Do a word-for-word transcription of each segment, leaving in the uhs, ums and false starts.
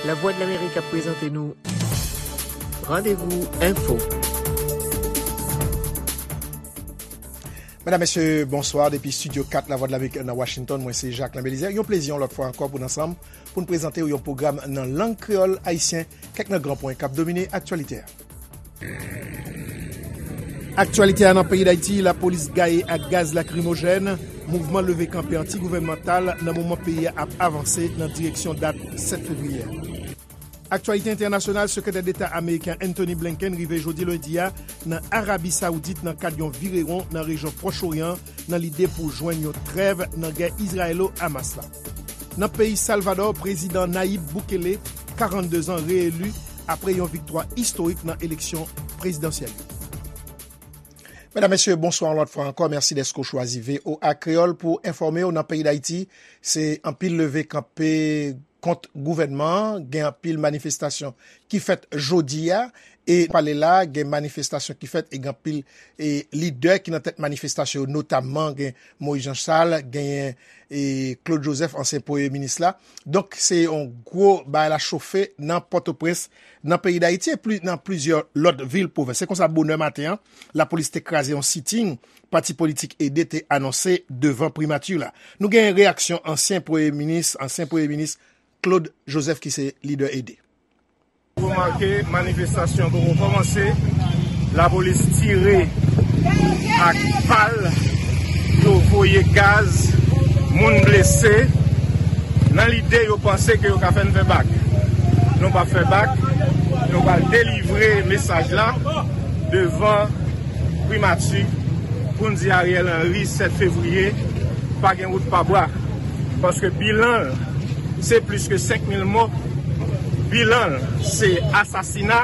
Lavwadlamerik ap prezante nou Randevou Enfo. Medam, mesye, bonswa. Depi Estidyo kat Lavwadlamerik nan Washington, mwen se Jacquelin Belizaire. Yon plezi yon lòt fwa ankò pou n ansanm, pou n prezante w yon pwogram nan lang kreyòl ayisyen, kèk nan gran pwen k ap domine aktyalite a. Aktyalite a nan peyi Dayiti, lapolis gaye ak gaz lakrimojèn, mouvman leve kanpe anti-gouvènmantal nan moman peyi a ap avanse nan direksyon dat sèt fevriye a. Aktyalite entènasyonal, Sekretè Deta ameriken Antony Blinken rive jodi lendi a nan Arabi Sawoudit nan kad yon virewon nan rejyon Pwòch Oryan nan lide pou jwenn yon trèv nan gè Izrayelo-Hamas la. Nan peyi Salvadò, prezidan Nayib Bukele, karannde zan, reeli apre yon viktwa istorik nan eleksyon prezidansyèl yo. Medam, mesye, bonswa yon lòt fwa ankò. Mèsi dèske w chwazi V O A Kreyòl pou enfòme w. Nan peyi Dayiti, se anpil leve kanpe kont gouvènman an, gen anpil manifestasyon ki fèt jodi a, e pale la, gen manifestasyon ki fèt, e gen anpil, e, lidè ki nan tèt manifestasyon yo, notamman gen Moïse Jean Charles, genyen, e, Claude Joseph, ansyen premye minis la. Donk, se yon gwo bagay la chofe nan Pòtoprens, nan peyi Dayiti, e pli, nan plizyè lòt vil pwovens. Se konsa, bonè maten an, lapolis te kraze yon siting pati politik Ede te anonse devan primati la. Nou gen reyaksyon ansyen premye minis, ansyen premye minis Claude Joseph ki se lidè Ede. Remake, manifestasyon poko kòmanse. Lapolis tire ak bal, yo voye gaz, moun blese. Nan lide yo panse ke yo ka fè n fè bak. Nou p ap fè bak, nou pral delivre mesaj la devan primati pou n di Ariel Henry sèt fevriye, pa gen wout pa bwa. Paske bilan l, se plis ke senk mil mò. Bilan l, se asasina.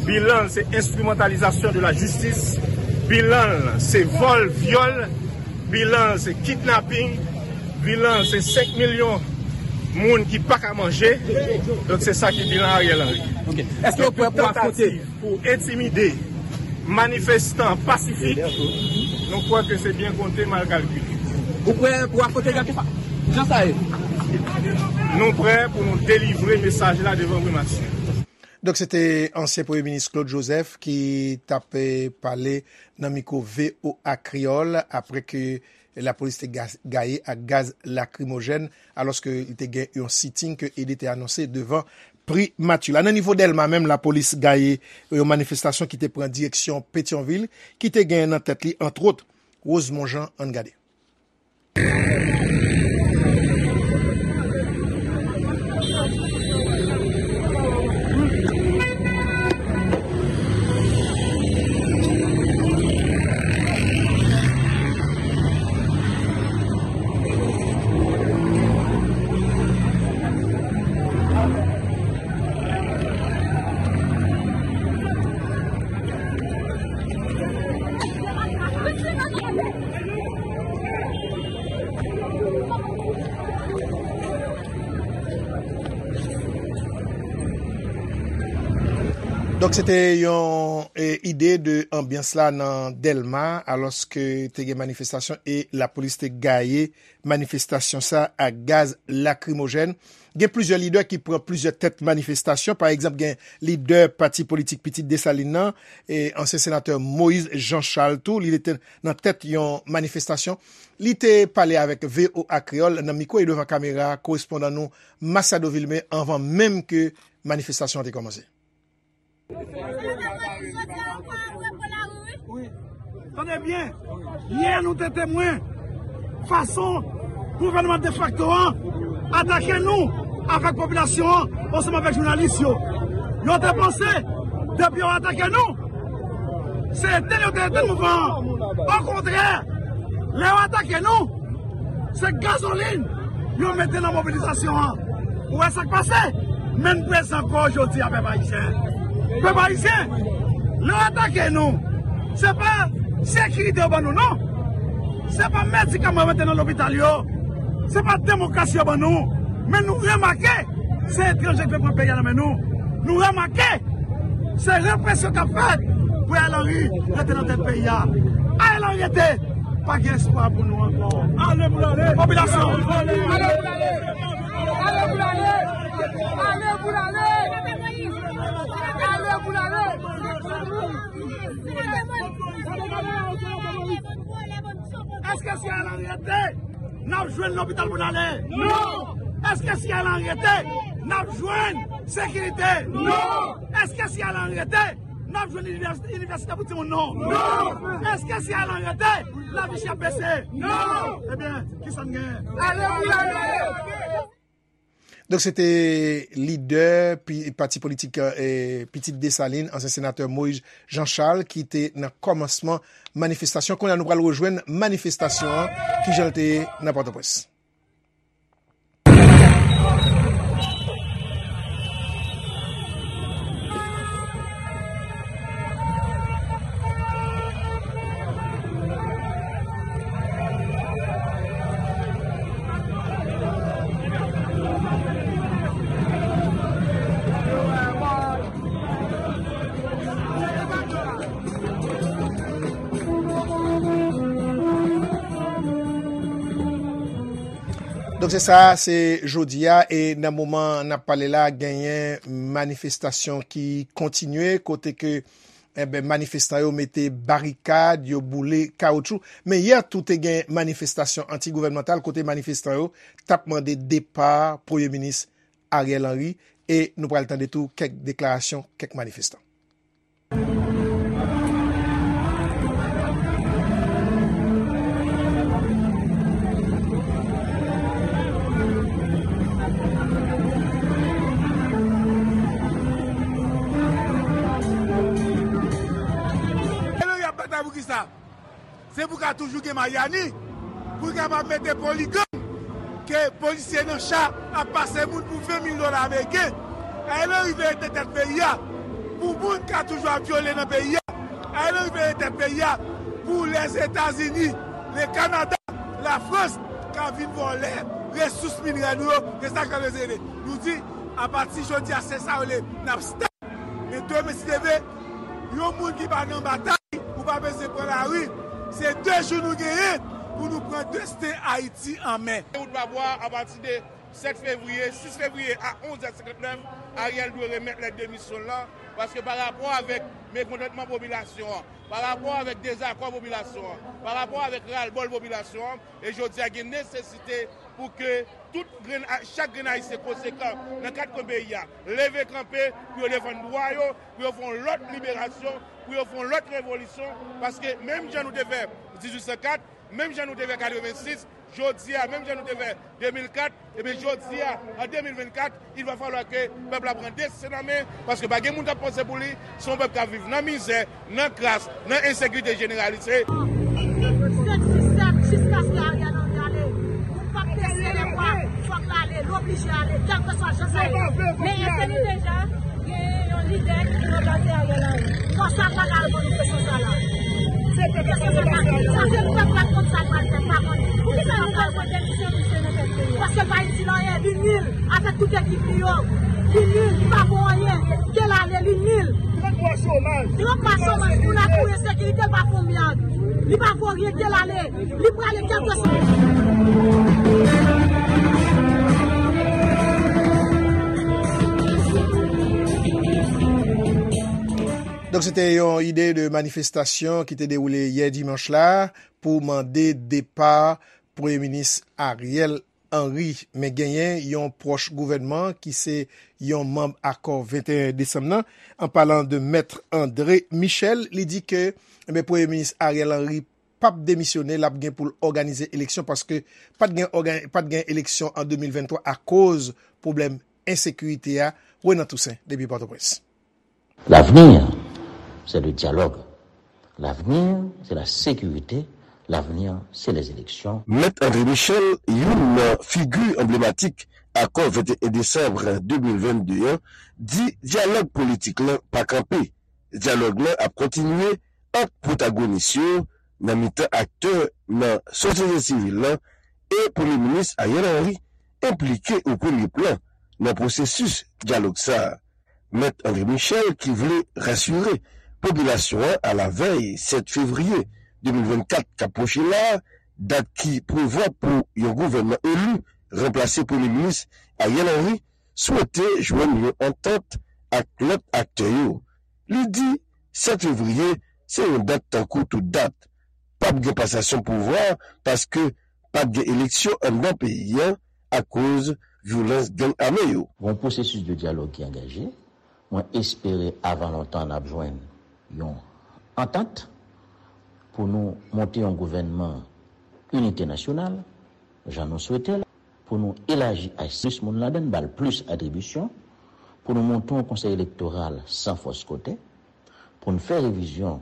Bilan l, se enstrimantalizasyon de la jistis. Bilan l, se vòl, vyòl. Bilan l, se kidnaping. Bilan l, se senk milyon moun ki pa ka manje. Donk, se sa ki bilan Ariel Henry. Ok. Èske w prè pou afwonte? Tantativ pou entimide manifestan pasifik, nou kwè ke se byen konte, mal kalkile. Ou prè pou afwonte Jan Kefa? Jan sa ye? Nou prè pou nou delivre mesaj la devan primati. Donk, se te ansyen premye minis Claude Joseph ki t ap, eh, pale nan mikwo V O A Kreyòl apre ke lapolis te ga-, gaye ak gaz lakrimojèn, alòske li te gen yon siting ke Ede te anonse devan primati la. Nan nivo Dèlma menm, lapolis gaye yon manifestasyon ki te pran direksyon Petyonvil, ki te gen nan tèt li, antwòt, Rosemond Jean. Ann gade. Donk, se te yon, e, ide de anbyans la nan Dèlma, alòske te gen manifestasyon e lapolis te gaye manifestasyon sa ak gaz lakrimojèn. Gen plizyè lidè ki pran plizyè tèt manifestasyon. Pa egzanp, gen lidè pati politik Pitit Desalin nan, e ansyen senatè Moïse Jean Charles tou, li te nan tèt yon manifestasyon. Li te pale avèk V O A Kreyòl nan mikwo e devan kamera korespondan nou Masiado Vilmé anvan menm ke manifestasyon an te kòmanse. Tande byen, yè nou te temwen fason gouvènman defakto an atake nou avèk popilasyon an ansanm avèk jounalis yo. Yo te panse depi yo atake nou, se etenn yo te etenn mouvman an. Okontrè, lè yo atake nou, se gazolin yo mete nan mobilizasyon an. Ou wè sa k pase? Men n prezan kò jodi a, pèp ayisyen. Pèp ayisyen, lè yo atake nou, se pa sekirite yo ban nou, non. Se pa medikaman yo mete nan lopital yo. Se pa demokrasi yo ban nou. Men nou remake, se etranje ki vle pran peyi a nan men nou. Nou remake, se represyon k ap fèt pou Ariel Henry rete nan tèt peyi a. Ariel Henry rete. Pa gen espwa pou nou ankò. Ale pou l ale. Popilasyon. Ale pou l ale. Ale pou l ale. Ale pou l ale. Ale pou l ale. Èske si Ariel Henry rete, n ap jwenn lopital pou n ale? Non! Èske si Ariel Henry rete, n ap jwenn sekirite? Non! Èske si Ariel Henry rete, n ap jwenn inivès-, inivèsite pou timoun nou? Non! Èske si Ariel Henry rete, lavi chè ap bese? Non! Ebyen, kisa n genyen? Ale pou n ale! Donk, se te lidè pi-, pati politik, eh, Pitit Desalin, ansyen senatè Moïse Jean Charles, ki te nan kòmansman manifestasyon. Kounye a, nou pral rejwenn manifestasyon an, kijan l te ye nan Pòtoprens. Donk, se sa, se jodi a, e nan moman n ap pale la, genyen manifestasyon ki kontinye, kote ke, enben, manifestan yo mete barikad, yo boule kawoutchou. Men yè tou te gen manifestasyon anti-gouvènmantal, kote manifestan yo t ap mande depa Premye Minis Ariel Henry, e nou pral tande tou kèk deklarasyon kèk manifestan. Ariel Henry ap batay pou kisa? Se pou ka toujou gen Mayani, pou l kapab mete poligang, ke polisye nan cha ap pase moun pou ven mil dola ameriken. Ariel Henry veye tèt peyi a pou moun ka toujou ap vyole nan peyi a. Ariel Henry veye tèt peyi a pou Lèzetazini, le Kanada, Lafrans ka vin vòlè resous minerè nou yo. Se sa k ap rele. Nou di, apati jodi a, se sa yo le, n ap stop. Men demen, si Dye vle, yon moun ki pa nan batay, ou pa bezwen pran lari. Se de jou nou genyen pou nou pran desten Ayiti an men. Wout Babwa, apati de sèt fevriye, sis fevriye a onz è senkantnèf, Ariel dwe remèt lèt demisyon l lan, paske pa rapò avèk mekontantman popilasyon an, pa rapò avèk dezakò popilasyon an, pa rapò avèk ralbòl popilasyon an, e jodi a gen nesesite pou ke tout grenn, chak grenn Ayisyen konsekan nan kat kwen peyi a leve kanpe pou yo defann dwa yo, pou yo fè yon lòt liberasyon, pou yo fè yon lòt revolisyon, paske menm jan nou te fè dizuit san kat, menm jan nou te fè katrevensis, jodi a, menm jan nou te fè de mil kat, ebyen, jodi a, an de mil vennkat, il va falloir que pèp la pran desten an men, paske pa gen moun k ap panse pou li, se yon pèp k ap viv nan mizè, nan kras, nan ensekirite jeneralize. Sèt sis sèt, jiskaske Ariel Henry ale. Nou p ap bese lèbra, fòk l ale, l oblije ale, kèlkeswa jan sa ye. Men entèlijan, genyen yon lidè ki ranplase Ariel Henry. Fò sa pa al ban nou kesyon sa la. Kesyon sa la, sa se pèp la k konn sa l pral fè, pa konn. Poukisa nou pral pran demisyon misye nan tèt peyi a? Paske l pa itil anyen, li nil. Avèk tout ekip li yo, li nil, li pa vo anyen. Ke l ale, li nil. Trant mwa chomaj. Trant mwa chomaj, moun la pou ensekirite, l pa fè yon myad. Li pa vo ryen, ke l ale. Li prale kèlkeswa. Donk, se te yon ide de manifestasyon ki te dewoule yè dimanch la pou mande depa Premye Minis Ariel Henry. Men genyen yon pwòch gouvènman ki se yon manm akò venteyen desanm nan, an palan de Mèt André Michel, li di ke, enben, Premye Minis Ariel Henry p ap demisyone, l ap gen pou l òganize eleksyon, paske pa t gen òga-, pa t gen eleksyon an de mil venntwa akoz pwoblèm ensekirite a. Renan Toussaint, depi Pòtoprens. L'avenir, c'est le dialogue. L'avenir, c'est la sécurité. L'avenir, c'est les élections. Mèt André Michel, youn nan figi anblematik akò venteyen desanm de mil vennde an, di dyalòg politik lan pa kanpe. Dyalòg lan ap kontinye ant pwotagonis yo nan mitan aktè nan sosyete sivil lan e Premye Minis Ariel Henry enplike o premye plan nan pwosesis dyalòg sa a. Mèt André Michel ki vle rasire popilasyon an alavèy sèt fevriye de mil vennkat k ap pwoche la a, dat ki prevwa pou yon gouvènman eli ranplase Premye Minis Ariel Henry, swete jwenn yon antant ak lòt aktè yo. Li di sèt fevriye se yon dat tankou tout dat. P ap gen pasasyon pouvwa paske p ap gen eleksyon anndan peyi a akoz vyolans gang ame yo. Gon pwosesis de dyalòg ki angaje. Mwen espere avan lontan n ap jwenn yon antant pou nou monte yon gouvènman inite nasyonal, jan nou swete l, pou nou elaji ach plis moun ladan l, ba l plis atribisyon, pou nou monte yon konsèy elektoral san fòs kote, pou n fè revizyon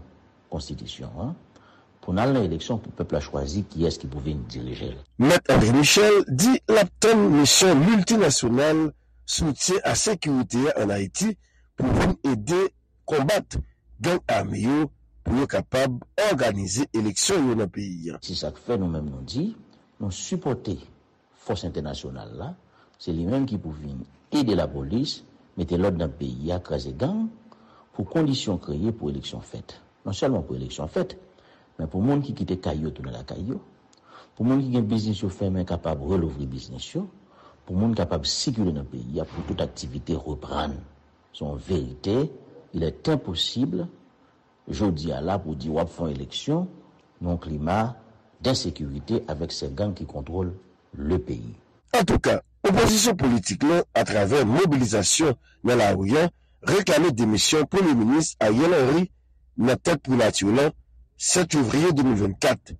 konstitisyon an, pou n al nan eleksyon pou pèp la chwazi kiyès ki pou vin dirije l. Mèt André Michel di l ap tann misyon miltinasyonal soutyen a sekirite a ann Ayiti pou vin ede konbat gang ame yo pou yo kapab òganize eleksyon yo nan peyi a. Se sa k fè nou menm nou di, nou sipòte fòs entènasyonal la, se li menm ki pou vin ede lapolis mete lòd nan peyi a, kraze gang, pou kondisyon kreye pou eleksyon fèt. Non sèlman pou eleksyon fèt, men pou moun ki kite kay yo tounen lakay yo, pou moun ki gen biznis yo fèmen kapab relouvri biznis yo, pou moun kapab sikile nan peyi a, pou tout aktivite reprann. Se yon verite, il est impossible jodi a la pou di w ap fè yon eleksyon nan yon klima densekirite avèk sè gang ki kontwòl le peyi. Antouka, opozisyon politik lan, atravè mobilizasyon nan lari a, reklame demisyon Premye Minis Ariel Henry nan tèt primati lan sèt fevriye de mil vennkat.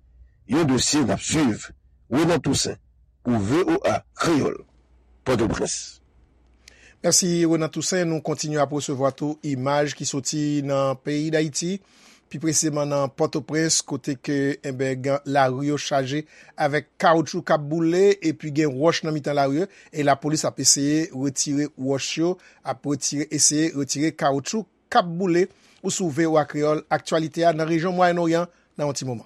Yon dosye n ap swiv. Renan Toussaint, pou V O A Kreyòl, Pòtoprens. Mèsi, Renan Toussaint. Nou kontinye ap resevwa tou imaj ki soti nan peyi Dayiti, pi presizeman nan Pòtoprens, kote ke, enben, gen, lari yo chaje avèk kawoutchou k ap boule, epi gen wòch nan mitan lari yo, e lapolis ap eseye retire wòch yo, ap retire, eseye retire kawoutchou k ap boule. Ou sou V O A Kreyòl, aktyalite a nan rejyon Mwayen Oryan nan yon ti moman.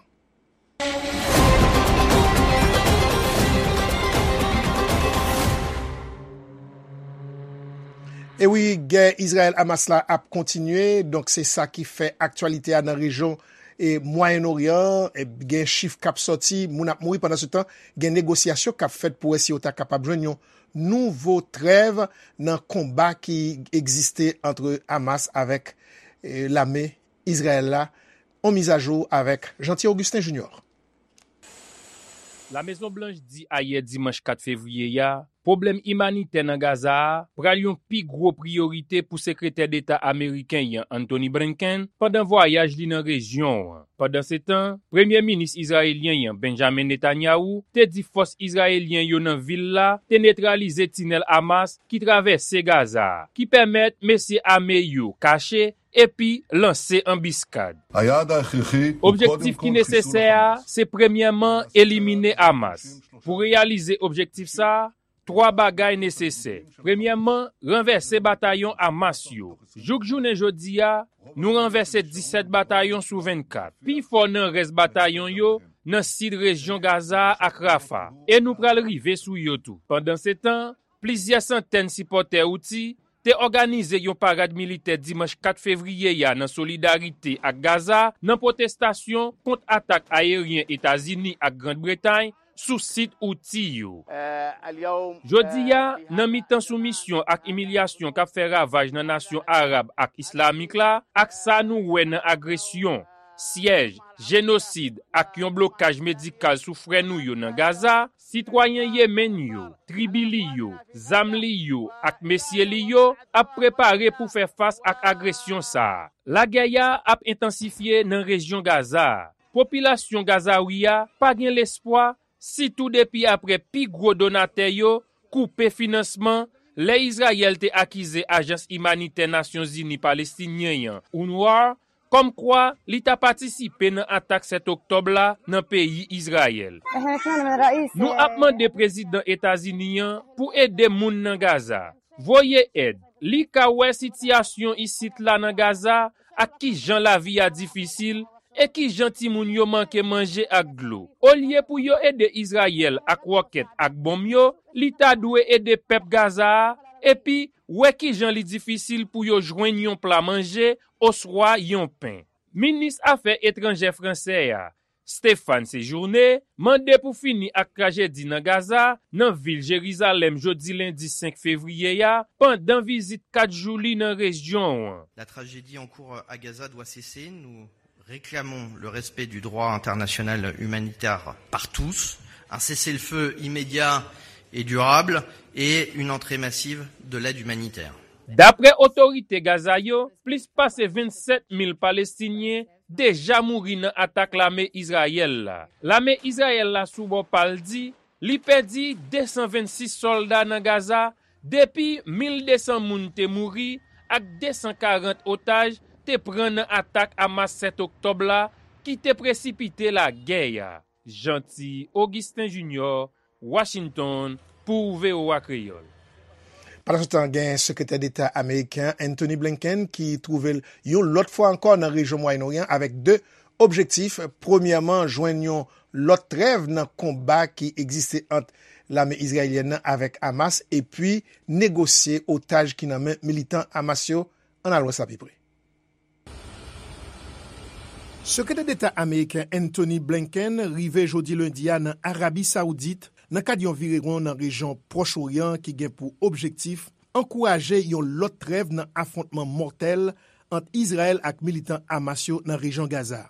E wi, gè Izrayèl-Hamas la ap kontinye, donk se sa ki fè aktyalite a nan rejyon e Mwayen Oryan, e gen chif k ap sòti, moun ap mouri. Pandan se tan, gen negosyasyon k ap fèt pou wè si yo ta kapab jwenn yon nouvo trèv nan konba ki egziste ant Hamas avèk, e, lame Izrayèl la. On mizajou avèk Jeanty Augustin Junior. Lamezon Blanch di ayè dimanch kat fevriye a, pwoblèm imanitè nan Gaza a pral yon pi gwo priyorite pou Sekretè Deta ameriken an, Antony Blinken, pandan vwayaj li nan rejyon an. Pandansetan, Premye Minis izrayelyen an, Benjamin Netanyahu, te di fòs izrayelyen yo nan vil la te netralize tinèl Hamas ki travèse Gaza a, ki pèmèt mesye ame yo kache epi lanse anbiskad. Objektif ki nesesè a, se premyèman elimine Hamas. Pou reyalize objektif sa a, twa bagay nesesè. Premyèman, ranvèse batayon Hamas yo. Jouk jounen jodi a, nou ranvèse disèt batayon sou vennkat, pifò nan rès batayon yo nan sid rejyon Gaza a ak Rafah, e nou pral rive sou yo tou. Pandansetan, plizyè santèn sipòtè Houthi te òganize yon parad militè dimanch kat fevriye a nan solidarite ak Gaza, nan pwotestasyon kont atak ayeryen Etazini ak Grann Bretay sou sit Houthi yo. Jodi a, nan mitan soumisyon ak imilyasyon k ap fè ravaj nan nasyon arab ak islamik la, ak sa nou wè nan agresyon, syèj, jenosid ak yon blokaj medikal sou frè nou yo nan Gaza, sitwayen Yemen yo, tribi li yo, zam li yo ak mesye li yo ap prepare pou fè fas ak agresyon sa a. Lagè a ap entansifye nan rejyon Gaza a. Popilasyon Gazawi a pa gen lespwa, sitou depi apre pi gwo donatè yo koupe finansman, lè Izrayèl te akize Ajans Imanitè Nasyonzini Palestinyen an, UNRWA, kòmkwa li ta patisipe nan atak sèt oktòb la nan peyi Izrayèl. Nou ap mande prezidan Etazini an pou ede moun nan Gaza. Voye èd. Li ka wè sitiyasyon isit la nan Gaza ak kijan lavi a difisil e kijan timoun yo manke manje ak dlo. Olye pou yo ede Izrayèl ak wòkèt ak bonm yo, li ta dwe ede pèp Gaza a, epi wè kijan li difisil pou yo jwenn yon pla manje oswa yon pen. Minis afè etranjè fransè a, Stéphane Séjourné mande pou fini ak trajedi nan Gaza, nan vil Jerizalèm jodi lendi senk fevriye a, pandan vizit kat jou li nan rejyon an. La tragédie en cours à Gaza doit cesser. Nous réclamons le respect du droit international humanitaire par tous, un cessez-le-feu immédiat et durable et une entrée massive de l'aide humanitaire. Daprè otorite Gaza yo, plis pase vennsèt mil Palestinyen deja mouri nan atak lame Izrayèl la. Lame Izrayèl la sou bò pa l di li pèdi de san vennsis sòlda nan Gaza depi mil de san moun te mouri ak de san karant otaj te pran nan atak Hamas sèt oktòb la ki te presipite lagè a. Jeanty Augustin Junior, Washington, pou V O A Kreyòl. Pandansetan, gen Sekretè Deta ameriken Antony Blinken ki twouve l yon lòt fwa ankò nan rejyon Mwayen Oryan avèk de objektif. Premyèman, jwenn yon lòt trèv nan konba ki egziste ant lame izrayelyèn nan avèk Hamas, epi negosye otaj ki nan men militan Hamas yo. Ann al wè sa pi pre. Sekretè Deta ameriken Antony Blinken rive jodi lendi a nan Arabi Sawoudit nan kad yon virewon nan rejyon Pwòch Oryan ki gen pou objektif ankouraje yon lòt trèv nan afwontman mòtèl ant Izrayèl ak militan Hamas yo nan rejyon Gaza.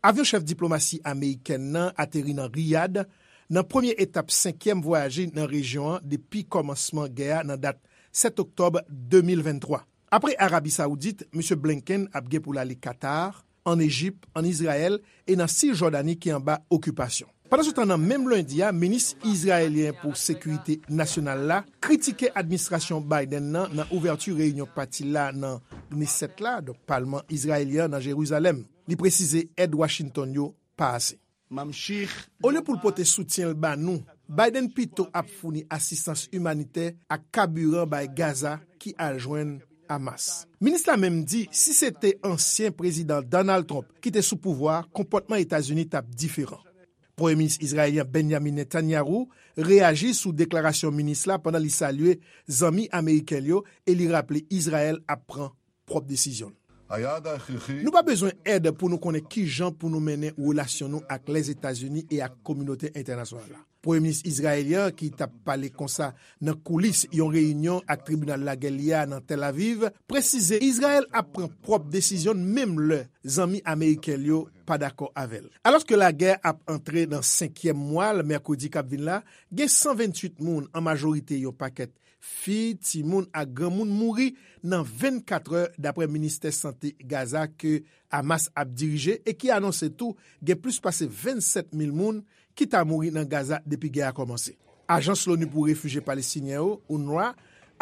Avyon chèf diplomasi amerikèn nan ateri nan Riyad nan premye etap senkyèm vwayaj li nan rejyon an depi kòmansman gè a nan dat sèt oktòb de mil venntwa. Apre Arabi Sawoudit, Misye Blinken ap gen pou l ale Katar, ann Ejip, ann Izrayèl e nan Sijòdani ki anba okipasyon. Pandansetan, nan menm lendi a, minis izrayelyen pou sekirite nasyonal la kritike administrasyon Biden nan nan ouvèti reyinyon pati la nan Knesset la, donk palman izrayelyen an nan Jerizalèm. Li presize èd Washington yo pa ase. Olye pou l pote soutyen l ba nou, Biden pito ap founi asistans imanitè ak kabiran bay Gaza ki al jwenn Hamas. Minis la menm di si se te ansyen Prezidan Donald Trump ki te sou pouvwa a, konpòtman Etazini t ap diferan. Premye Minis izrayelyen Benjamin Netanyahu reyaji sou deklarasyon minis la pandan li salye zanmi ameriken l yo e li raple Izrayèl ap pran pwòp desizyon l. Nou pa bezwen èd pou nou konnen ki jan pou nou mennen relasyon nou ak Lèzetazini e ak kominote entènasyonal la. Premye minis izrayelyen an, ki t ap pale konsa nan koulis yon reyinyon ak tribinal lagè li a nan Tel Aviv, presize Izrayèl ap pran pwòp desizyon l menm lè zanmi ameriken l yo pa dakò avè l. Alòske lagè ap antre nan senkyèm mwa l mèkredi k ap vin la, gen san venntuit moun, an majorite yon pakèt fi, timoun ak granmoun mouri nan vennkatrè, dapre ministè sante Gaza ke Hamas ap dirije e ki anonse tou gen plis pase vennsèt mil moun ki ta mouri nan Gaza depi gè a kòmanse. Ajans Loni pou Refijye Palestinyen yo, UNRWA,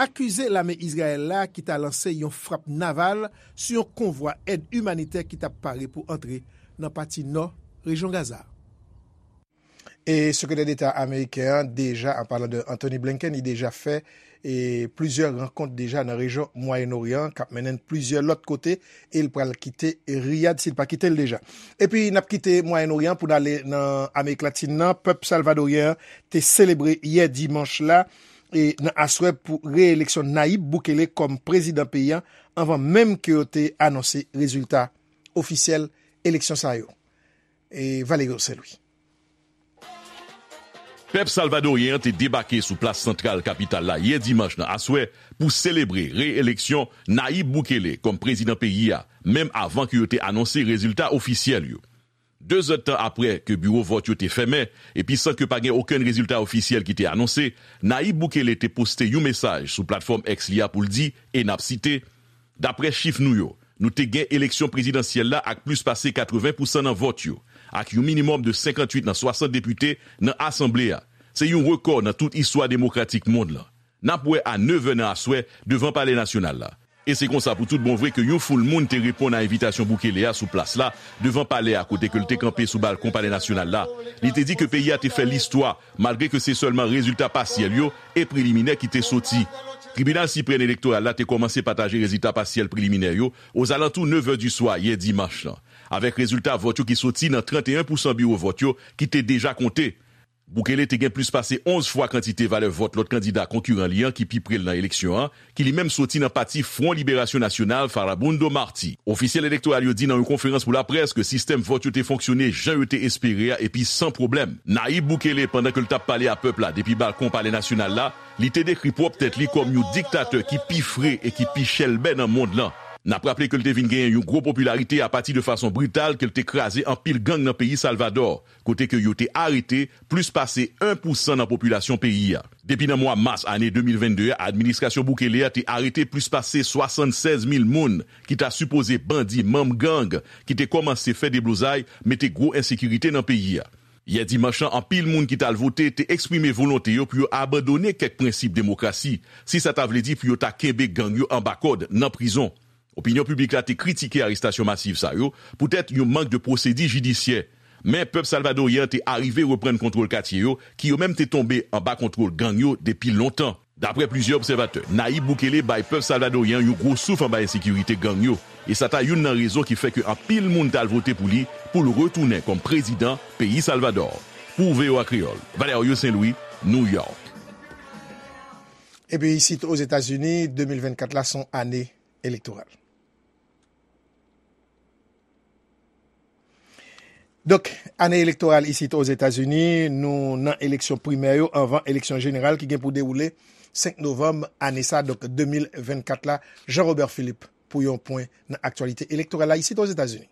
akize lame Izrayèl la ki ta lanse yon frap naval sou yon konvwa èd imanitè ki t ap pare pou antre nan pati nò rejyon Gaza a. E Sekretè Deta ameriken an deja, an palan de Antony Blinken, li deja fè e plizyè rankont deja nan rejyon Mwayen Oryan k ap mennen n plizyè lòt kote, e l pral kite Riyad si l pa kite l deja. Epi n ap kite Mwayen Oryan pou n ale nan Amerik Latin nan. Pèp salvadoryen an te selebre yè dimanch la e nan aswè pou reyeleksyon Nayib Bukele kòm prezidan peyi a, anvan menm ke yo te anonse rezilta ofisyèl eleksyon sa yo. E Valerio Saint-Louis. Pèp salvadoryen an te debake sou plas santral kapital la yè dimanch nan aswè pou selebre re-eleksyon Nayib Bukele kòm prezidan peyi a, menm avan ke yo te anonse rezilta ofisyèl yo. De zèdtan apre ke biwo vòt yo te fèmen, epi san ke pa gen okenn rezilta ofisyèl ki te anonse, Nayib Bukele te poste yon mesaj sou platfòm X li a pou l di, e n ap site, Daprè chif nou yo, nou te gen eleksyon prezidansyèl la ak plis pase katreven pousan nan vòt yo, ak yon minimòm de senkanntuit nan swasant depite nan asanble a. Se yon rekò nan tout istwa demokratik mond lan. N ap wè a nevè nan aswè devan Palè Nasyonal la. E se konsa pou tout bon vre ke yon foul moun te reponn a envitasyon Bukele a sou plas la, devan palè a kote ke l te kanpe sou balkon Palè Nasyonal la. Li te di ke peyi a te fè listwa, malgre ke se sèlman rezilta pasyèl yo e preliminè ki te soti. Tribinal Siprèm Elektoral la te kòmanse pataje rezilta pasyèl preliminè yo ozalantou nevè di swa yè dimanch lan, avèk rezilta vòt yo ki soti nan tranteyen pousan biwo vòt yo ki te deja konte. Bukele te gen plis pase onz fwa kantite valè vòt lòt kandida konkiran li an ki pi pre l nan eleksyon an, ki li menm soti nan pati Front Liberasyon Nasyonal, Farabundo Marti. Ofisyèl elektoral yo di nan yon konferans pou laprès ke sistèm vòt yo te fonksyone jan yo te espere a epi san pwoblèm. Nayib Bukele, pandan ke l t ap pale a pèp la depi balkon Palè Nasyonal la, li te dekri pwòp tèt li kòm yon diktatè ki pi fre e ki pi chèlbè nan mond lan. N ap raple ke l te vin genyen yon gwo popilarite apati de fason brital ke l te kraze anpil gang nan peyi Salvadò, kote ke yo te arete plis pase en pou san nan popilasyon peyi a. Depi nan mwa mas ane de mil vennde a, administrasyon Bukele a te arete plis pase swasannsèz mil moun ki ta sipoze bandi, manm gang, ki te kòmanse fè deblozay, mete gwo ensekirite nan peyi a. Yè dimanch lan, anpil moun ki t al vote te eksprime volonte yo pou yo abandone kèk prensip demokrasi, si sa ta vle di pou yo ta kenbe gang yo anba kòd nan prizon. Opinyon piblik la te kritike arestasyon masiv sa yo poutèt yon mank de pwosedi jidisyè. Men pèp salvadoryen an te arive reprann kontwòl katye yo, ki yo menm te tonbe anba kontwòl gang yo depi lontan. Daprè plizyè obsèvatè, Nayib Bukele bay pèp salvadoryen an yon gwo souf anba ensekirite gang yo, e sa ta youn nan rezon ki fè ke anpil moun t al vote pou li, pou l retounen kòm prezidan peyi Salvadò. Pou V O A Kreyòl, Valerio Saint Louis, New York. Epi isit Ozetazini, de mil vennkat la se yon ane elektoral. Donk, ane elektoral isit Ozetazini, nou nan eleksyon primè yo anvan eleksyon jeneral ki gen pou dewoule senk novanm ane sa, donk de mil vennkat la. Jean Robert Philippe pou yon pwen nan aktyalite elektoral la isit Ozetazini.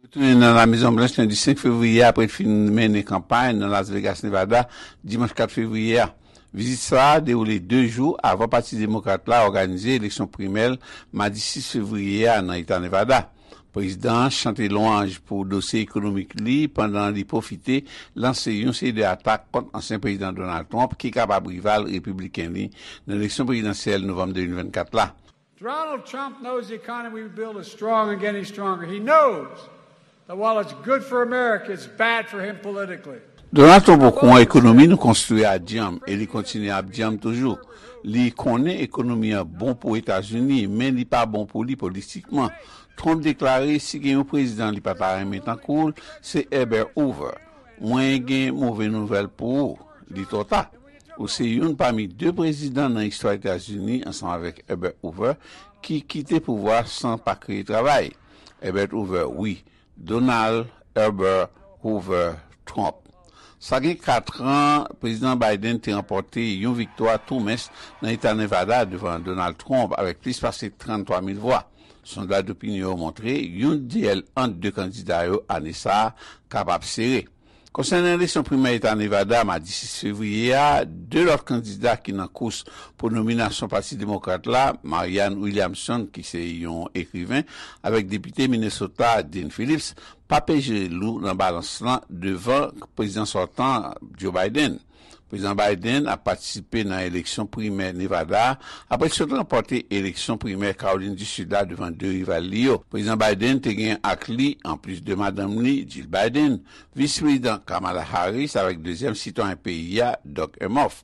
Retounen nan La Mezon Blanch lendi senk fevriye a apre l fin mennen kanpay nan Las Vegas, Nevada, dimanch kat fevriye a. Vizit sa a dewoule de jou avan Pati Demokrat la òganize eleksyon primè l madi sis fevriye a nan eta Nevada. Prezidan an chante lwanj pou dosye ekonomik li pandan li pwofite lanse yon seri de atak kont ansyen Prezidan Donald Trump ki kapab rival repibliken li nan eleksyon prezidansyèl novanm de mil vennkat la. Donald Trump knows the economy we build is strong and getting stronger. He knows that while it's good for America, it's bad for him politically. Donald Trump okouran ekonomi nou konstwi a djanm e li kontinye ap djanm toujou. Li konnen ekonomi an bon pou Etazini, men li pa bon pou li politikman. Trump deklare si gen yon prezidan li pa ta renmen tankou l, se Herbert Hoover. Mwen gen move nouvèl pou ou, li twò ta. Ou se youn pami de prezidan nan istwa Etazini ansanm avèk Herbert Hoover ki kite pouvwa san pa kreye travay. Herbert Hoover, wi. Donald Herbert Hoover Trump. Sa gen kat an, Prezidan Biden te ranpòte yon viktwa tou mens nan eta Nevada devan Donald Trump avèk plis pase tranntwa mil vwa. Sondaj dopinyon yo montre youn dyèl ant de kandida yo ane sa a kapab sere. Konsènan eleksyon primè eta Nevada madi sis fevriye a, de lòt kandida ki nan kous pou nominasyon Pati Demokrat la, Marianne Williamson, ki se yon ekriven, avèk depite Minnesota, Dean Phillips, pa peje lou nan balans lan devan prezidan sòtan, Joe Biden. Prezidan Biden ap patisipe nan eleksyon primè Nevada a apre l sot ranpòte eleksyon primè Kawolin di Sid la devan de rival li yo. Prezidan Biden te gen ak li, anplis de madanm li, Jill Biden, Vis Prezidan Kamala Harris avèk dezyèm sitwayen peyi a, Doug Emhoff.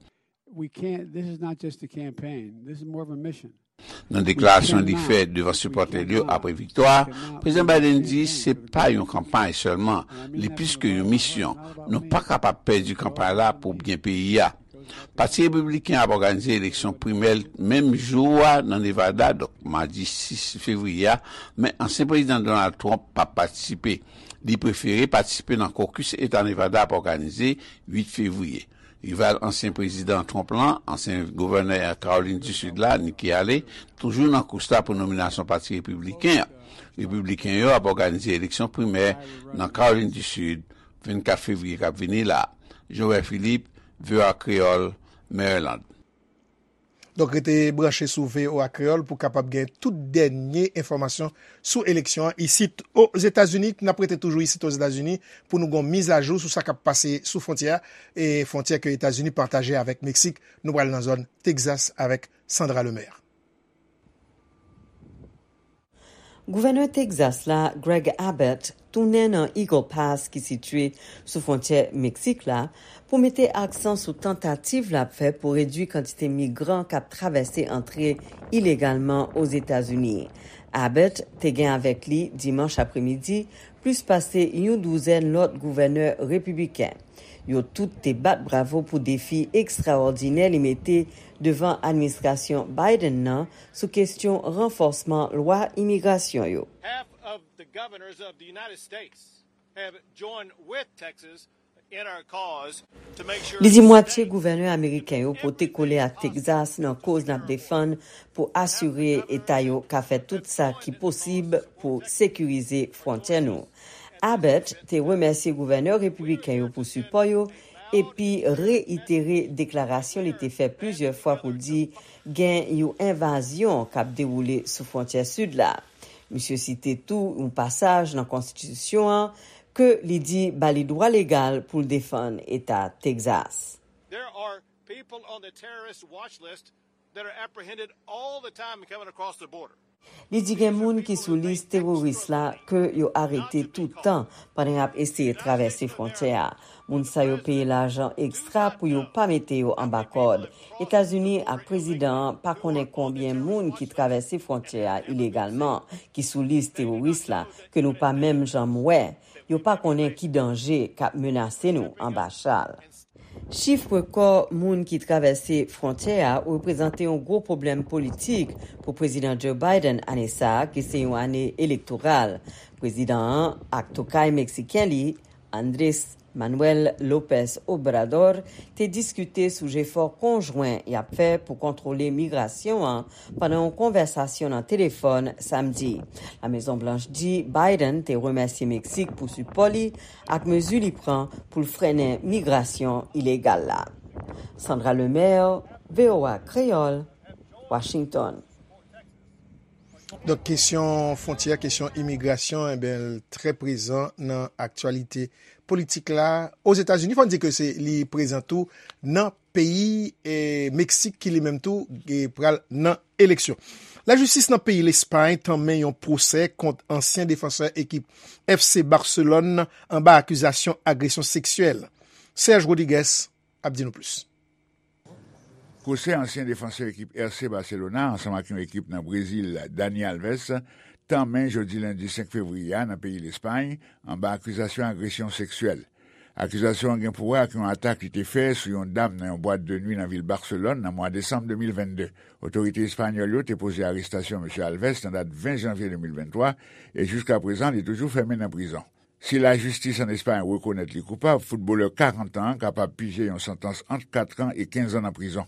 Nan deklarasyon li fè devan sipòtè l yo apre viktwa a, Prezidan Biden di se pa yon kanpay sèlman, li plis ke yon misyon. Nou pa kapab pèdi kanpay la pou byen peyi a. Pati Repibliken an ap òganize eleksyon primè l menm jou a nan Nevada, donk madi sis fevriye a, men ansyen Prezidan Donald Trump p ap patisipe. Li prefere patisipe nan kokis Eta Nevada ap òganize uit fevriye. Rival ansyen Prezidan Trump lan, ansyen gouvènè Kawolin di Sid la, Nikki Haley, toujou nan kous la pou nominasyon Pati Repibliken an. Repibliken yo ap òganize eleksyon primè nan Kawolin di Sid vennkat fevriye k ap vini la. Joel Philippe, V O A Kreyòl, Maryland. Donk, rete branche sou V O A Kreyòl pou kapab gen tout dènye enfòmasyon sou eleksyon an isit Ozetazini. N ap rete toujou isit Ozetazini pou nou gon mizajou sou sa k ap pase sou fwontyè a, e fwontyè ke Etazini pataje avèk Meksik. Nou pral nan zòn Texas avèk Sandra Lemaire. Gouvènè Texas la, Greg Abbott, tounen nan Eagle Pass ki sitiye sou fwontyè Meksik la pou mete aksan sou tantativ l ap fè pou redui kantite migran k ap travèse antre ilegalman Ozetazini. Abbott te gen avèk li dimanch apremidi plis pase yon douzèn lòt gouvènè repibliken. Yo tout te bat bravo pou defi ekstraòdinè li mete devan administrasyon Biden nan sou kesyon ranfòsman lwa imigrasyon yo. Half of the governors of the United States have joined with Texas in our cause to make sure Li di that mwatye gouvènè ameriken yo pote kole ak Texas nan koz n ap defann pou asire eta yo ka fè tout sa ki posib pou sekirize fwontyè nou. Abbott te remèsye gouvènè repibliken yo pou sipò yo epi reitere deklarasyon li te fè plizyè fwa pou di gen yon envazyon k ap dewoule sou fwontyè sid la. Misye site tou yon pasaj nan konstitisyon an ke li di ba li dwa legal pou l defann eta Texas. There are people on the terrorist watch list that are apprehended all the time coming across the border. Li di gen moun ki sou lis teworis la ke yo arete tout tan pandan y ap eseye travèse fwontyè a. Moun sa yo peye lajan ekstra pou yo pa mete yo anba kòd. Etazini ak prezidan an pa konnen konbyen moun ki travèse fwontyè a ilegalman, ki sou lis teworis la, ke nou pa menm janm wè. Yo pa konnen ki danje k ap menase nou anba chal. Chif rekò moun ki travèse fwontyè a reprezante yon gwo pwoblèm politik pou Prezidan Joe Biden ane sa a, ki se yon ane elektoral. Prezidan an ak tokay meksiken li, Andrés Manuel López Obrador, te diskite sou jefò konjwen y ap fè pou kontwole migrasyon an pandan yon konvèsasyon nan telefòn samdi. La Mezon Blanch di Biden te remèsye Meksik pou sipò li ak mezi li pran pou l frennen migrasyon ilegal la. Sandra Lemaire, V O A Kreyòl, Washington. Donk, kesyon fwontyè, kesyon imigrasyon, enben, l trè prezan nan aktyalite politik la. Ozetazini, fò n di ke se, li prezan tou nan peyi, eh, Meksik, ki li menm tou, eh, pral nan eleksyon. Lajistis nan peyi Lespay tanmen yon pwosè kont ansyen defansè ekip F C Barcelone anba akizasyon agresyon seksyèl. Serge Rodriguez ap di nou plis. Pwosè ansyen defansè ekip R C Barcelona ansanm ak yon ekip nan Brezil, Dani Alves, tanmen jodi lendi senk fevriye a nan peyi Lespay, anba akizasyon agresyon seksyèl. Akizasyon an gen pou wè ak yon atak li te fè sou yon dam nan yon bwat de nwi nan vil Barselòn nan mwa desanm de mil vennde. Otorite espanyòl yo te poze arestasyon mesye Alves nan dat ven janvye de mil venntwa, e jiska prezan, li toujou fèmen nan prizon. Si lajistis ann Espay rekonèt li koupab, foutbolè karant an an kapab pije yon santans ant kat an e kenz an nan prizon.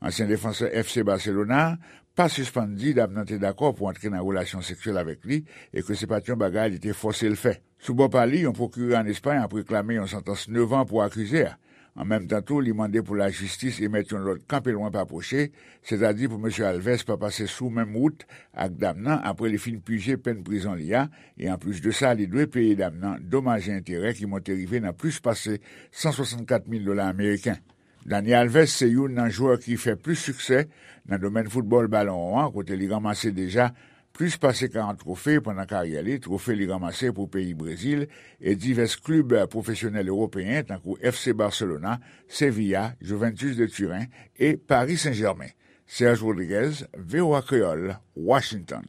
Ansyen defansè F C Barcelona a pa sispann di dam nan te dakò pou antre nan relasyon seksyèl avèk li e ke se pa t yon bagay li te fòse l fè. Sou bò pa li, yon pwokirè ann Espay ap reklame yon santans nèf an pou akize a. An menm tan tou, li mande pou lajistis emèt yon lòd kanpe lwen pa pwoche, sètadi pou mesye Alves pa pase sou menm wout ak dam nan apre li fin pije pèn prizon li a, e anplis de sa, li dwe peye dam nan domaj e enterè ki monte rive nan plis pase san swasannkat mil dola ameriken. Dani Alves se youn nan jwè ki fè plis siksè nan domèn foutbòl balon won an, kote li ranmase deja plis pase karant twofe pandan karyè li, twofe li ranmase pou peyi Brezil e divès klib pwofesyonèl ewopeyen tankou F C Barcelona, Sevilla, Juventus de Turin e Paris Saint-Germain. Serge Rodriguez, V O A Kreyòl, Washington.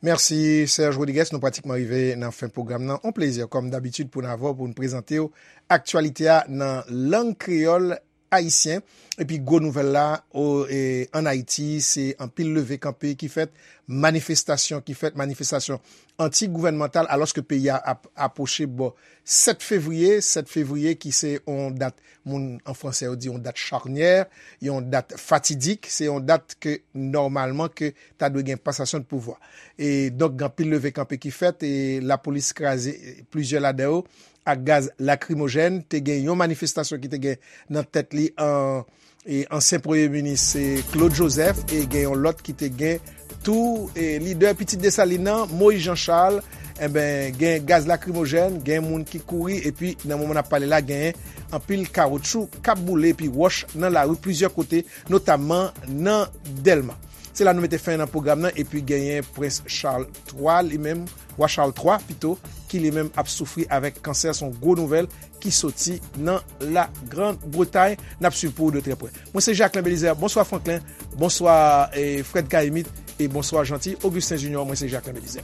Mèsi, Serge Rodriguez. Nou pratikman rive nan fen pwogram nan. On plezi, kòm dabitid, pou n avè w, pou n prezante w aktyalite a nan lang kreyòl ayisyen. Epi gwo nouvèl la, o, e, ann Ayiti, se anpil leve kanpe ki fèt, manifestasyon ki fèt, manifestasyon anti-gouvènmantal, alòske peyi a ap apwoche bò sèt fevriye, sèt fevriye ki se yon dat, moun an fransè yo di yon dat charnyè, yon dat fatidik, se yon dat ke nòmalman ke ta dwe gen pasasyon de pouvwa. E donk, gen anpil leve kanpe ki fèt, e lapolis kraze, e, plizyè ladan yo ak gaz lakrimojèn. Te gen yon manifestasyon ki te gen nan tèt li an, e, ansyen premye minis, e, Claude Joseph, e gen yon lòt ki te gen tou, e, lidè Pitit Desalin nan, Moïse Jean Charles. Enben, gen gaz lakrimojèn, gen moun ki kouri, epi nan moman n ap pale la, gen anpil kawotchou k ap boule, epi wòch nan lari plizyè kote, notamman nan Dèlma. Se la nou mete fen nan pwogram nan, epi genyen Prens Charles twa, li menm, Wa Charles twa pito, ki li menm ap soufri avèk kansè. Se yon gwo nouvèl ki soti nan La Grande Bretagne. N ap swiv pou ou de trè prè. Mwen se Jacquelin Belizaire. Bonswa Franklin. Bonswa, eh, Fred Caïmite. E bonswa Jeanty, Augustin Junior, mwen se Jacques Lemelizer.